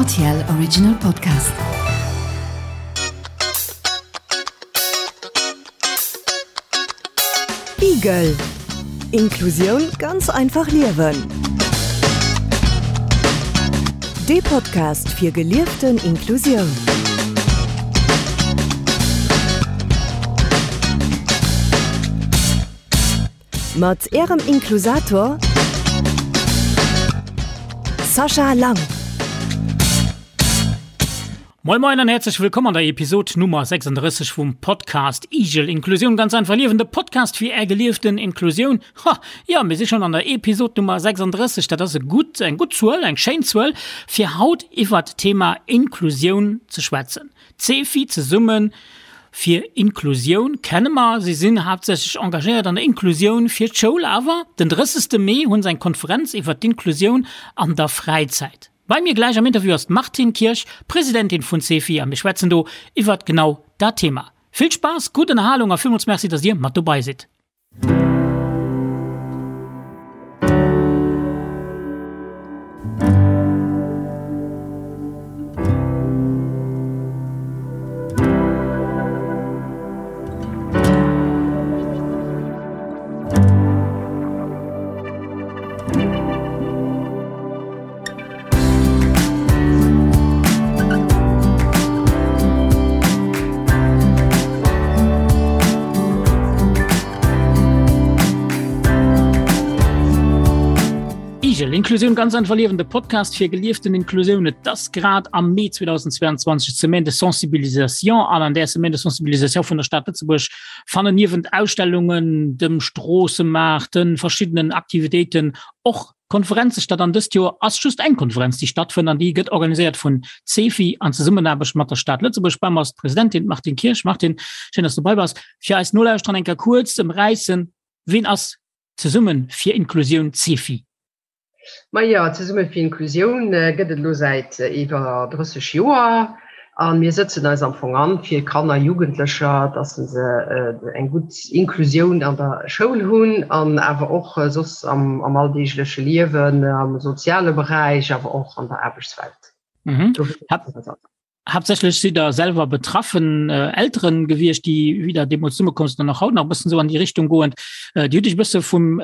RTL Original Podcast. Igel Inklusioun ganz einfach liewen. Dee Podcast fir gelieften Inklusioun. Mat Ärem Inklusator Sascha Lang. Moin Moin an häerzlech wëllkomm an der Episod Nummer 36 vum Podcast Igel Inklusioun ganz einfach liewen, de Podcast fir är gelieften Inklusioun. Ha, jo, mir si schonn an der Episod Nummer 36, dat ass e gutt, eng gutt Zuel, eng schéin Zuel, fir haut iwwert d'Thema Inklusioun ze schwätzen. D'Cefi zesumme fir Inklusioun kenne mer. Si sinn haaptsächlech engagéiert an der Inklusioun fir d'Schoul. Awer den 30. Mee hunn se eng Konferenz iwwer d'Inklusioun an der Fräizäit. Bei mir gläich am Interview ass d'Martine Kirsch, Presidentin vun Cefi a mir schwätzen do iwwert genau dat Thema. Vill Spaass, gutt Ënnerhalung a villmools Merci, dass dir mat dobei sidd. Igel, Inklusioun ganz einfach liewen, de Podcast fir gelieften Inklusioun. Et ass grad am Mee 2022 d'Semaine de Sensibilisation an an där Semaine de Sensibilisation vun der Stad Lëtzebuerg fannen niewent Ausstellungen, dem Stroossemaart, de verschiddenen Aktivitéiten och Konferenze statt an dëst Joer ass just eng Konferenz déi stattfënnt an déi gëtt organiséiert vun CEFI an Zesummenaarbecht mat der Stad Lëtzebuerg. Bei mer ass d'Presidentin d'Martine Kirsch. Martine, schéin dass du bei bass. Fir eis Nolauschterer eng Kéier kuerz ëmräissen, ween ass Zesumme fir Inklusioun, CEFI? Majo, Zesumme fir Inklusioun gëtt et elo säit iwwer 30 Joer. A mir sëtzen eis am Fong an fir Kanner, Jugendlecher, dass se eng gutt Inklusioun an der Schoul hunn an awer och soss am alldeegleche Liewen, am soziale Beräich, awer och an der Aarbechtswelt. Mhm. Haaptsächlech sidd Der selwer betraffen Elteren gewiescht, déi wéi Der deemools zesummekomm sidd an och haut nach e bëssen esou an déi Richtung goend. Dir hutt Iech e bësse vum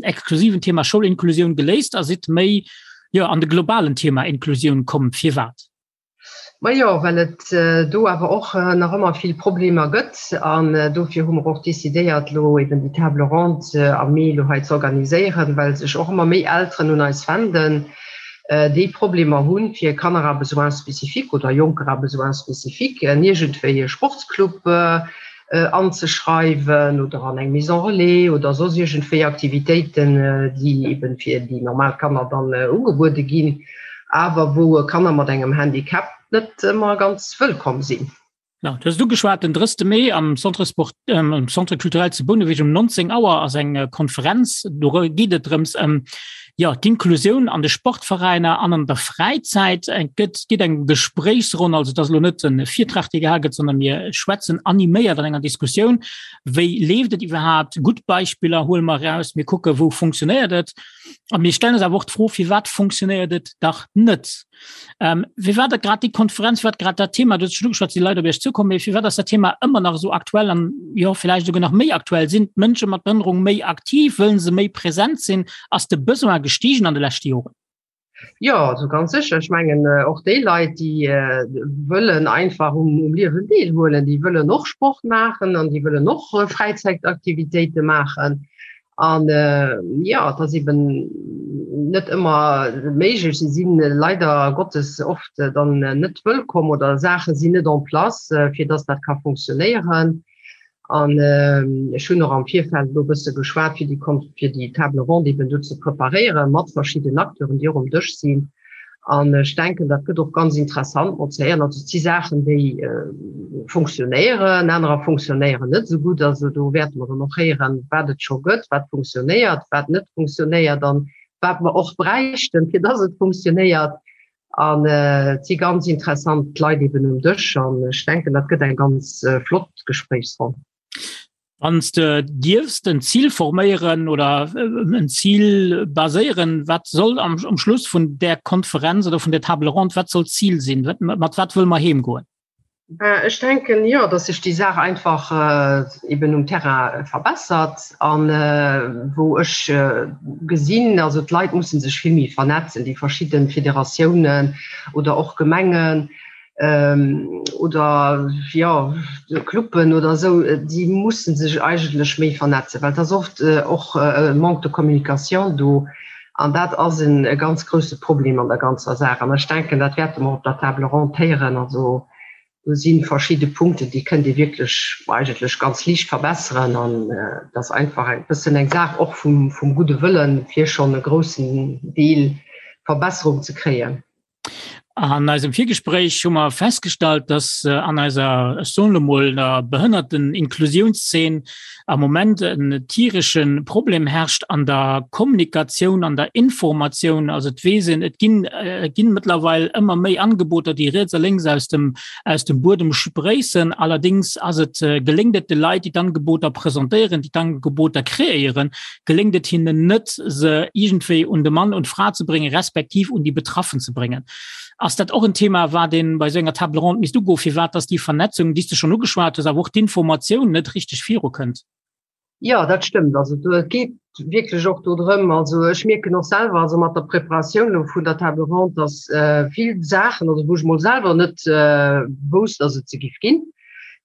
exklusiven Thema Schoulinklusioun geléist a sidd méi, jo, an de globalen Thema Inklusioun komm. Firwat? Majo, well et do awer och nach ëmmer vill Problemer gëtt. An dofir hu mer och decidéiert, elo eben déi Table ronde am Mee elo hei ze organiséieren, well sech och ëmmer méi Elteren un eis wenden, déi Problemer hunn, fir Kanner à besoins spécifiques oder Jonker à besoins spécifiques en iergendwéi e Sportsclub anzeschreiwen oder an eng Maison relais oder soss iergendwéi Aktivitéiten, déi eben fir déi normal Kanner dann ugebuede ginn, awer wou Kanner mat engem Handicap net ëmmer ganz wëllkomm sinn. Ja, du hues et ugeschwat, den 30. Mee am Centre Sport, am Centre Culturel zu Bouneweg um 19 Auer ass eng Konferenz. Do geet et drëms ëm jo, d'Inklusioun an de Sportveräiner an an der Fräizäit. Et gëtt, geet eng Gespréichsronn, also et ass elo net e Virtrag, dee gehal gëtt, sondern mir schwätzen animéiert an enger Diskussioun, wéi leeft et iwwerhaapt, gutt Beispiller huele mer eraus, mir kucke wou funktionéiert et a mir stellen eis awer och d'Fro, firwat funktionéiert et dach net? Ähm, firwat dat grad déi Konferenz, firwat grad dat Thema, du hues schon ugeschwat, si Leit op Iech zukommen, mee firwat ass dat Thema ëmmer nach esou aktuell an jo villäicht esouguer nach méi aktuell? Sinn d'Mënsche mat Behënnerung méi aktiv? Wëllen se méi present sinn? Ass de Besoin gestiegen an de leschte Joren? Jo, also ganz sécher. Ech mengen och déi Leit, déi wëllen einfach um, um Liewen deelhuelen, déi wëllen och Sport maachen an déi wëllen och Fräizäitaktivitéite maachen. An jo, et ass eben net ëmmer méiglech. Si si leider Gottes oft dann net wëllkomm oder Saache sinn net en place, fir dass dat ka funktionéieren. An ech hunn och am Virfeld elo e bësse geschwat, fir déi, fir déi Table ronde eben do ze preparéieren, mat verschidden Acteuren, déi och um Dësch sinn. An ech denken, dat gëtt och ganz interessant mat ze héieren. Also et si Saachen, déi funktionéieren, anerer funktionéieren net esou gutt. Also do wäerte mer dann och héieren, wat et scho gëtt, wat funktionéiert, wat net funktionéiert an wat mer och bräichten, fir dass et funktionéiert. An et si ganz interessant Leit eben um Dësch an ech denken, dat gëtt eng ganz flott Gespréichsronn. Wann s de dierfs en Zil forméieren oder en Zil baséieren, wat soll am, am Schluss vun där Konferenz oder vun der Table ronde, wat soll d'Zil sinn? Wat, mat wat wëlle mer heemgoen? Ech denken, jo, datt sech déi Saach einfach eben um Terrain verbessert an wou ech gesinn, also d'Leit musse sech vill méi vernetzen, déi verschidde Federatiounen oder och Gemengen, oder jo Cluben oder esou, déi musse sech eigentlech méi vernetzen, well et ass oft och e Manque de communication do an dat ass e ganz grousse Problem an der ganzer Saach. An ech denken, dat wäerte mer op der Table ronde héieren. Also do si verschidde Punkten, déi kënnt ee wierklech eigentlech ganz liicht verbesseren an et ass einfach e bëssen eng Saach och vum gudde Wëllen, fir schonn e groussen Deel Verbesserung ze kréien. An eisem Virgespréich hu mer festgestallt, dass äh, an eiser ech soen elo mol der Behënnerten-Inklusiounszeen am Moment en tieresche Problem herrscht an der Kommunikatioun, an der Informatioun. Also et weess een, et ginn äh, et ginn mëttlerweil ëmmer méi Angeboter, déi riets a lénks aus dem, aus dem Buedem spréissen. Allerdings ass et, äh, geléngt et de Leit, déi d'Angeboter presentéieren, déi d'Angeboter kreéieren, geléngt et hinnen net, se iergendwéi un de Mann und d'Fra ze bréngen, respektiv un déi Betraffen ze bréngen. Ass dat och en Thema, wat ee bei esou enger Table ronde misst ugoen, firwat dass déi Vernetzung, déi s de schonn ugeschwat hues, awer och d'Informatioun net richteg virukënnt? Jo, dat stëmmt. Also do, et geet wierklech och do drëm, also ech mierken och selwer, also mat der Preparatioun elo vun der Table ronde, dass vill Saachen, also wou ech mol selwer net wousst, dass et se giff ginn,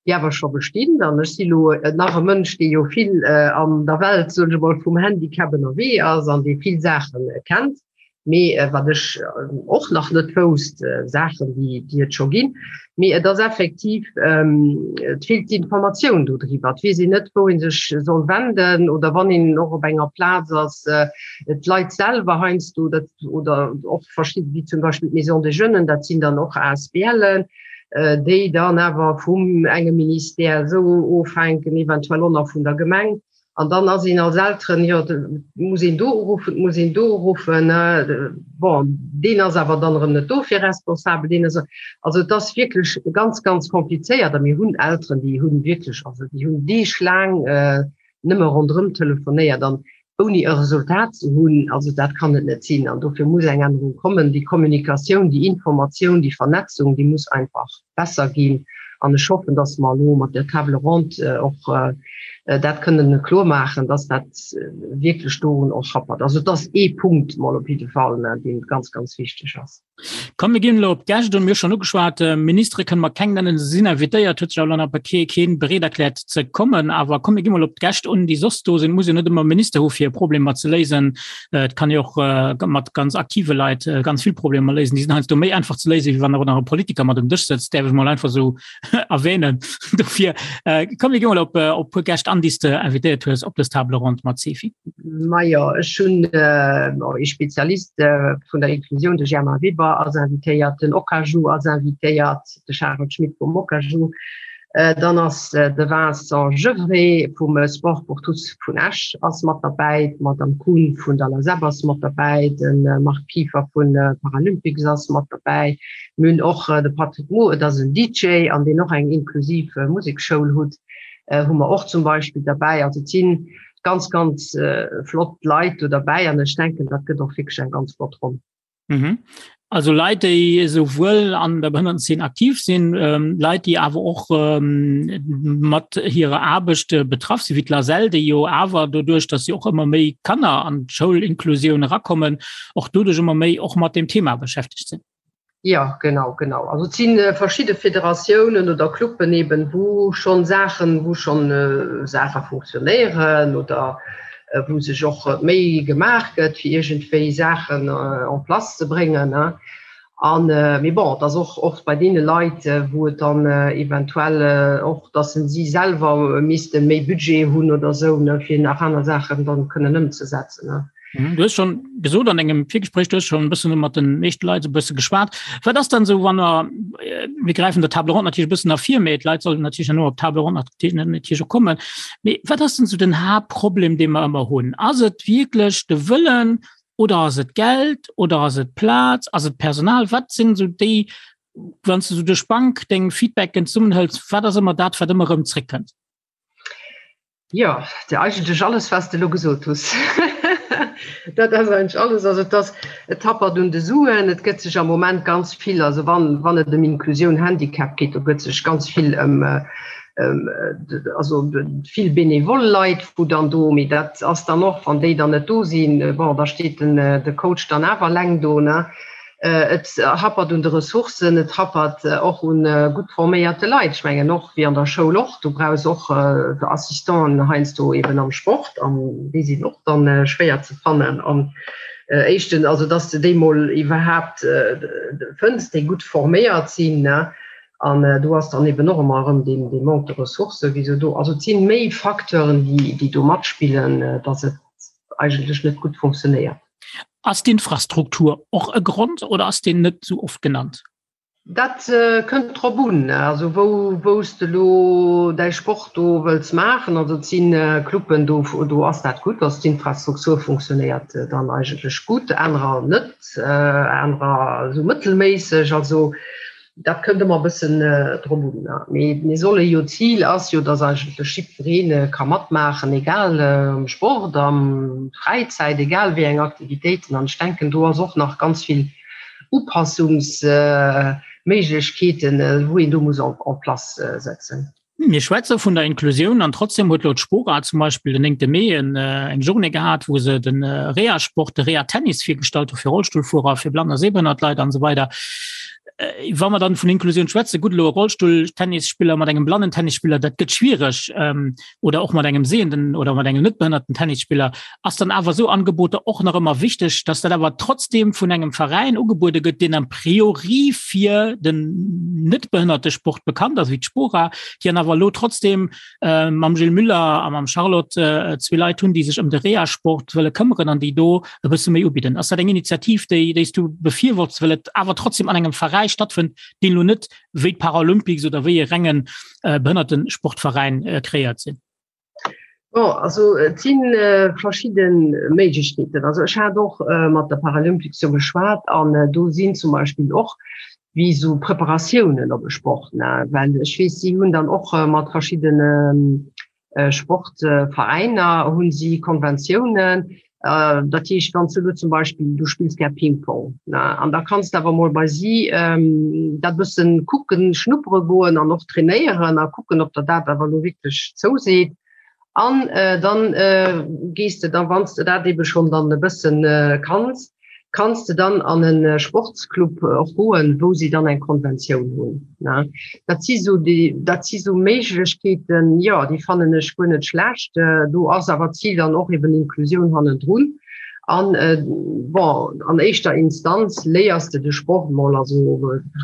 déi awer scho bestinn. An ech si lo nach e Mënsch, dee jo vill an der Welt, soen ech emol, vum Handicap ënnerwee ass an dee vill Saache kennt. Mee wat ech och nach net wousst, Saachen, déi, déi et scho ginn. Mee et ass effektiv, et feelt d'Informatioun do driwwer. Et weess een net, wou ee sech soll wenden oder wann een och op enger Plaz ass, d'Leit selwer heiansdo, dat, oder och verschidde, wéi zum Beispill d'Maison des Jeunes, dat sinn dann och ASBLen, déi dann awer vum engem Ministère esou ofhänken, eventuell och nach vun der Gemeng. An dann ass een als Elteren, jo, muss een do uruffen, muss een do uruffen. Bon, deen ass awer dann erëm net dofir responsabel, deen ass. Also et ass wierklech ganz, ganz komplizéiert a mir hunn Elteren, déi hunn wierklech, also déi hunn deeglaang nëmme ronderëm telefonéiert an ouni e Resultat ze hunn, also dat kann et net sinn. An dofir muss eng Ännerung kommen. Déi Kommunikatioun, déi Informatioun, déi Vernetzung, déi muss einfach besser ginn. An ech hoffen, dass mer elo mat der Table ronde och dat kënnen kloer maachen, dass dat wierklech dorun och happert. Also et ass ee Punkt mol op jidde Fall, dee ganz, ganz wichteg ass. Komm mir ginn elo op d'Gäscht un. Mir hu schonn ugeschwat, Ministere kënne mer keng nennen, se sinn invitéiert, huet sech awer elo nach kee kee bereet erkläert ze kommen. Awer komm mir gi mol op d'Gäscht un, déi soss do sinn. Et muss jo net ëmmer e Minister hu fir Problemer ze léisen. Et kann ee och mat ganz aktive Leit ganz vill Problemer léisen. Déi sinn heiansdo méi einfach ze léisen, wéi wann awer nach e Politiker mat um Dësch sëtzt, däerf ech mol einfach esou erwähnen. Dofir komm mir gi mol op e puer Gäscht an, déi s de invitéiert hues op dës Table ronde mat Sefi. Majo, ech hunn ee Spezialist vun der Inklusioun, de Germain Weber ass invitéiert, den Okaju ass invitéiert, de Charel Schmit vum Okaju, dann ass de Vincent Gevrey vum Sport pour tous vun Esch ass mat derbäi, d'Madame Kuhn vun der LASEP ass mat derbäi, de Marc Kieffer vu Paralympics ass mat derbäi, Mir hunn och de Patrick Moore, et ass en DJ an deen och eng inklusiv Musekschoul hutt, hu mer och zum Beispill derbäi. Also et si ganz, ganz flott Leit do derbäi an ech denken, dat gëtt och wierklech eng ganz flott Ronn. Mhm. Also Leit, déi esouwuel an der Behënnertenzeen aktiv sinn, ähm, Leit, déi awer och ähm, mat hirer Aarbecht äh, betraff sinn, wéi d'LASEL, déi jo awer doduerch, datt si och ëmmer méi Kanner an d'Schoulinklusioun erakommen, och doduerch ëmmer méi och mat dem Thema beschäftegt sinn. Ja, genau, genau. Also et si verschidde Federatiounen oder Cluben eben, wou schonn Saachen, wou schonn Saache funktionéieren oder wou sech och Méi gemaach gëtt, fir iergendwéi Saachen en place ze bréngen. An, mee bon, et ass och oft bei deene Leit, wou et dann eventuell och, datt si selwer misste méi Budget hunn oder esou, fir nach aner Saachen dann kënnen ëmzesetzen. Mhm, du hues schon gesot an engem Virgespréich, du hues schon e bëssen mat den meeschte Leit e bësse geschwat. Wat ass dann esou, wann der, äh, mir gräifen der Table ronde natierlech e bëssen ervir, mee d'Leit sollen natierlech herno op d'Table ronde natierlech och kommen. Mee wat ass denn esou den Haaptproblem, dee mer ëmmer hunn? Ass et wierklech de Wëllen oder ass et Geld oder ass et Plaz, ass et Personal? Wat sinn esou déi, wann s du esou duerch d'Bank deng Feedbacken zesummenhëls, wat ass ëmmer dat, wat ëmmer erëm zréckkënnt? Jo, de eigentlech alles was de lo gesot hues. Dat ass eigentlech alles. Also et ass, et happert un de Suen, et gëtt sech am Moment ganz vill, also wann, wann et ëm Inklusioun, Handicap geet, do gëtt sech ganz vill ëm, ëm, also vill benevol Leit, wou dann do, mee dat ass dann och, wann déi dann net do sinn, bon, da steet den, de Coach dann awer eleng do, ne. Et happert un de Ressourcen, et happert och un gutt forméierte Leit. Ech mengen och wéi an der Schoul och, du brauchs och Assistenten heiansdo eben am Sport an déi sinn och dann schwéier ze fannen. An éischten, also dass de déi mol iwwerhaapt fënns, déi gutt forméiert sinn. An do ass dann eben och ëmmer erëm dee Manque de ressources, wéi esou do. Also et si méi Facteuren, déi do matspillen, dass et eigentlech net gutt funktionéiert. Ass d'Infrastruktur och e Grond oder ass deen net sou oft genannt? Dat kënnt drop un, also wou wou s de elo däi Sport do wëlls maachen. Also et si Cluben, do do ass dat gutt, also d'Infrastruktur funktionéiert dann eigentlech gutt, anerer net, anerer esou mëttelméisseg. Also Dat kënnt ëmmer e bëssen drop un. Mee mir solle jo, d'Zil ass jo, datt eigentlech jiddweree ka matmaachen, egal am Sport, am Fräizäit, egal wéi eng Aktivitéiten. An ech denken, do ass och nach ganz vill Upassungsméiglechkeeten, wou een do muss en place setzen. Mir schwätze vun der Inklusioun an trotzdem huet elo d'Spora zum Beispill den 9. Mee en, eng Journée gehat, wou se den Reha-Sport, de Reha-Tennis virgestallt hu fir Rollstullfuerer, fir blann a sehbehënnert Leit an esou weider. Wa mer dann vun Inklusioun schwätzen, gutt elo e Rollstull-Tennisspiller mat engem blannen Tennisspiller, dat gëtt schwiereg, oder och mat engem sehenden oder mat engem net behënnerten Tennisspiller, ass dann awer esou Angeboter och nach ëmmer wichteg, dass dat awer trotzdem vun engem Veräin ugebuede gëtt, deen a priori fir den net behënnerte Sport bekannt ass, wéi d'Spora, déi an awer elo trotzdem äh, mam Gilles Müller a mam Charlotte äh, zwee Leit hunn, déi sech ëm de Reha-Sport wëlle këmmeren an déi do e bësse méi ubidden. Ass dat eng Initiativ, déi, déi s du befürworts, well et awer trotzdem an engem Veräi stattfënnt, deen elo net wéi d'Paralympics oder wéi e rengen äh, Behënnertesportveräin äh, kreéiert sinn? Bon, also et si verschidde Méiglechkeeten. Also ech hat och mat der Paralympics jo geschwat an do sinn zum Beispill och wéi esou Preparatiounen op e Sport, ne, well ech weess, si hunn dann och mat verschiddene Sportveräiner hu si Konventiounen. Dat heescht, wann s du elo zum Beispill, du spills gär Ping-Pong, ne, an da kanns de awer mol bei si dat bëssen kucken, schnuppere goen an och trainéieren a kucken, ob der dat awer elo wierklech zouseet. An dann gees de da, wann s de dat ebe schonn dann e bëssen kanns, kanns de dann an e Sportsclub och goen, wou si dann eng Konventioun hunn. Dat si sou déi, dat si sou Méiglechkeeten, jo, déi fannen ech guer net schlecht. Do ass awer d'Zil dann och eben Inklusioun hannendrun. An bon, an éischter Instanz léiers de de Sport mol, also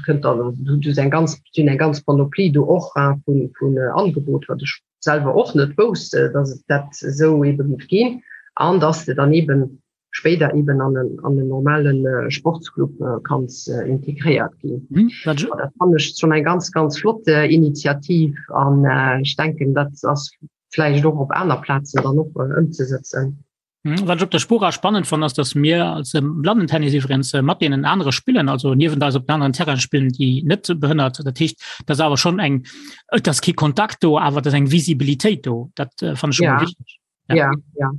kënnt dann, du hues eng ganz, si hunn eng ganz Panoplie do och vun, vun Angeboter, wat ech selwer och net wousst, datt et dat esou ebe géif ginn an datt de dann eben spéider eben an en, an en normalen äh, Sportsclub äh, kanns äh, integréiert ginn. Mhm. Dat fand ech schon eng ganz ganz flott äh, Initiativ an äh, ich denken dat ass vläicht och op aner Plazen dann och äh, ëmzesetzen. Mhm, wat ech op der Spora spannend fand, ass, dass mir als ähm, Blandentennis iwwerens äh, mat deenen anere spillen, also niewent eis op den anderen Terrain spillen, déi net behënnert. Dat heescht, dat ass awer schon eng, et ass kee Kontakt do, awer dat ass eng Visibilitéit do. Dat äh, fand ech schon ja. mal wichteg. Ja, ja. ja.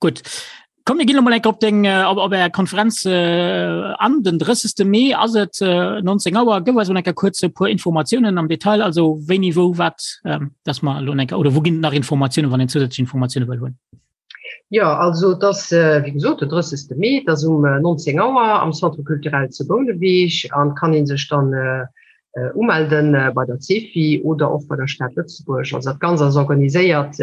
Gutt. Komm mir ginn emol enk op deng äh, op, op Är Konferenz äh, an den 30. Mee ass et äh, 19 Auer. Gëff eis mol enker kuerz e puer Informatiounen am Detail, also wéini, wou, wat, ähm, dass mer elo enker oder wou ginn nach Informatiounen, wann een zusätzlech Informatioune wëll hunn. Ja, also et ass äh, wéi gesot den 30. Mee, et ass um 19 äh, Auer am Centre culturel zu Bouneweg an kann een sech dann äh, Umelden bei der CEFI oder och bei der Stad Lëtzebuerg. Also dat Ganzt ass organiséiert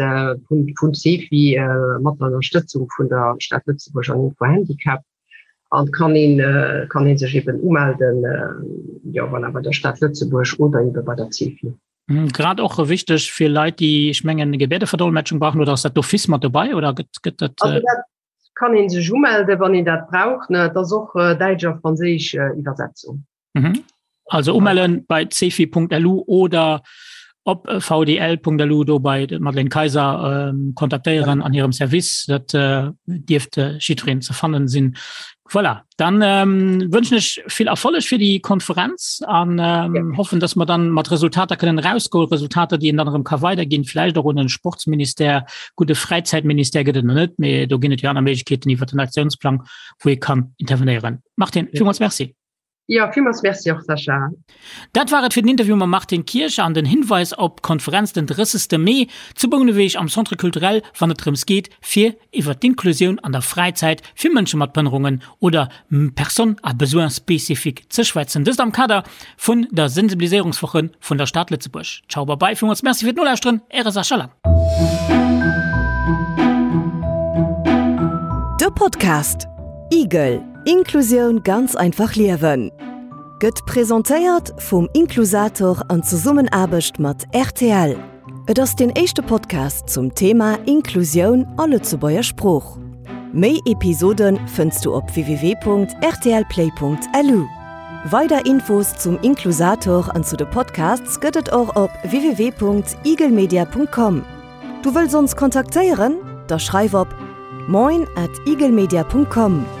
vun vun CEFI mat der Ënnerstëtzung vun der Stad Lëtzebuerg an Info Handicap an kann een kann een sech eben umelden, jo voilà, bei der Stad Lëtzebuerg oder ebe bei der CEFI. Grad och wichteg fir Leit, déi, ech mengen, Gebäerdeverdolmetschung brauchen, oder ass dat d'office mat dobei oder gëtt gëtt dat? Also dat kann een sech umelde wann een dat brauch, ne. Et ass och däitsch a franséisch Iwwersetzung. Mhm. Also umellen bei cefi.lu oder op vdl.lu do bei Madeleine Kaiser ähm, kontaktéieren an hirem Service. Dat äh, dierft äh, jiddwereen ze fannen sinn. Voilà, dann ähm, wënschen ech vill Erfolleg fir déi Konferenz an ähm, ja. hoffen, dass mer dann mat Resultater kënnen rausgoen, Resultater, déi een dann erëm ka weiderginn, vläicht och un den Sportsministère, gudde Fräizäitministère gëtt et nach net, mee do ginn et jo aner Méiglechkeeten iwwer den Aktiounsplang, wou ee kann intervenéieren. Martine, ja. villmools Merci. Ja, villmools Merci och, Sascha. Dat war et fir den Interview mam Martine Kirch an den Hinweis op d'Konferenz den 30. Mee zu Bouneweg am Centre Culturel, wann et drëms geet, fir iwwer d'Inklusioun an der Fräizäit fir Mënsche mat Behënnerungen oder Personnes à besoins spécifiques ze schwätzen. Dëst am Kader vun der Sensibiliséierungswoche vun der Stad Lëtzebuerg. Ciao, bye bye, villmools Merci fir d'Nolauschteren, Äre Sascha Lang. De Podcast Igel, Inklusioun ganz einfach liewen gëtt presentéiert vum Inklusator an Zesummenaarbecht mat rtl. Et ass deen éischte Podcast zum Thema Inklusioun a Lëtzebuerger Sprooch. Méi Episode fënns du op www.rtlplay.lu. Weider Infos zum Inklusator an zu de Podcasts gëtt et och op www.eaglemedia.com. Du wëlls ons kontaktéieren? Da schreif op moin at eaglemedia.com.